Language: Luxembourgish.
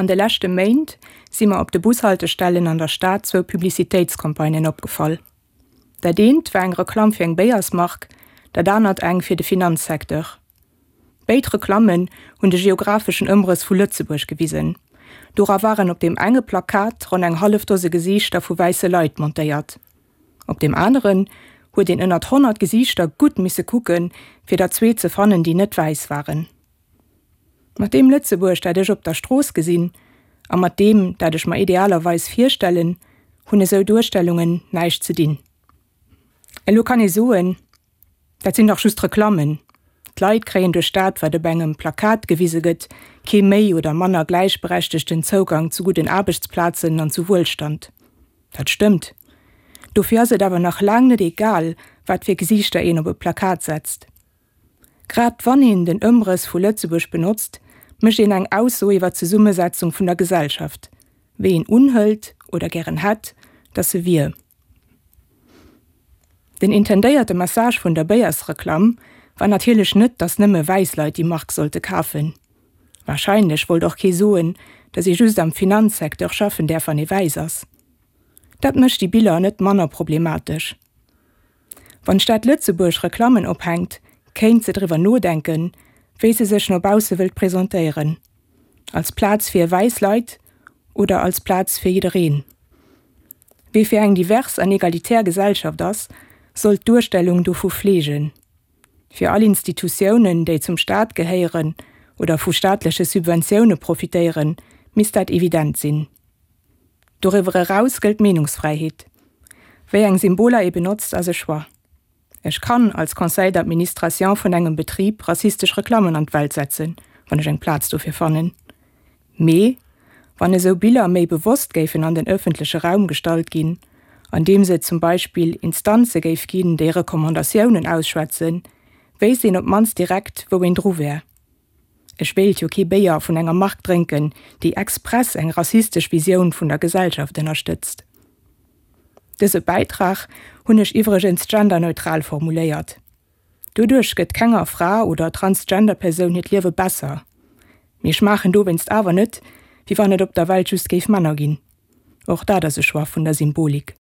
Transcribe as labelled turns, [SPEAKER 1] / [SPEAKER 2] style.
[SPEAKER 1] An de leschte Méint si mer op de Bushaltestellen an der Stad zwou Publicitéitscampagnen opgefall. Dat eent war eng Reklamm fir eng Béiersmark, dat anert eng fir de Finanzsecteur. Béid Reklammen hunn de geographeschen Ëmrëss vu Lëtzebuerg gewisen. Dora waren op deem enge Plakat ronn eng hallef Dose Gesiichter vu wäisse Leit montéiert. Op deem aneren huet een ënnert 100 Gesiichter gutt misse kucken, fir der zwee ze fannen, déi net wäiss waren. Mat deem Lëtzebuerg, dat ech op der Strooss gesinn, a mat deem, dat ech mer idealerweis virstellen, hunn esou Duerstellungen näischt ze dinn. Elo kann ee soen, Dat sinn dach just Reklammen. D'Leit kréien duerch dat, wat op engem Plakat gewise gëtt, kee méi oder manner gläichberechtegten Zougang zu gudden Aarbechtsplazen an zu Wuelstand. Dat stëmmt. Dofir ass et awer nach laang net egal, wat fir Gesiichter een op e Plakat setzt. Grad wann een den Ëmrëss vu Lëtzebuerg benotzt, mécht een eng Ausso iwwer d'Zesummesetzung vun der Gesellschaft, wéi een unhëlt oder gären hätt, datt se wier. Den intendéierte Message vun der Béiersreklamm war natierlech net, datt nëmme wäiss Leit déi Mark sollte kafen. Warscheinlech wollt och kee soen, datt ee just am Finanzsecteur schaffen däerf wann ee wäiss ass. Dat mécht déi Biller net manner problematesch. Wann d'Stad Lëtzebuerg Reklammen ophänkt, kéint se driwwer nodenken, wéi se sech no bausse wëllt presentéieren. Als Plaz fir wäiss Leit oder als Plaz fir jiddereen? Wie fir eng divers an egalitär Gesellschaft ass, sollt d'Duerstellung dovu fleegen. Fir all Institutiounen, déi zum Staat gehéieren oder vu staatleche Subventioune profitéieren, misst dat evident sinn. Doriwwer eraus gëllt d'Meenungsfräiheet. Wéi eng Symboler ee benotzt, ass e Choix. Ech kann als Conseil d'administration vun engem Betrib rassistesch Reklammen an d'Welt setzen, wann ech eng Plaz dofir fannen. Mee wann esou Biller méi bewosst géifen an den ëffentleche Raum gestallt ginn, andeems et zum Beispill Instanze géif ginn, déi Recommandatiounen ausschwätzen, wéisst een op d'mannst direkt, wou een dru wär. Ech wéilt jo kee Béier vun enger Mark drénken, déi express eng rassistesch Visioun vun der Gesellschaft ënnerstëtzt. Dëse Bäitrag hunn ech iwwregens genderneutral formuléiert. Doduerch gëtt kenger Fra oder Transgender-Persoun hiert Liewe besser. Mee ech maachen dowéinst awer net, wéi wann et op der Welt just géif Männer ginn. Och dat ass e Choix vun der Symbolik.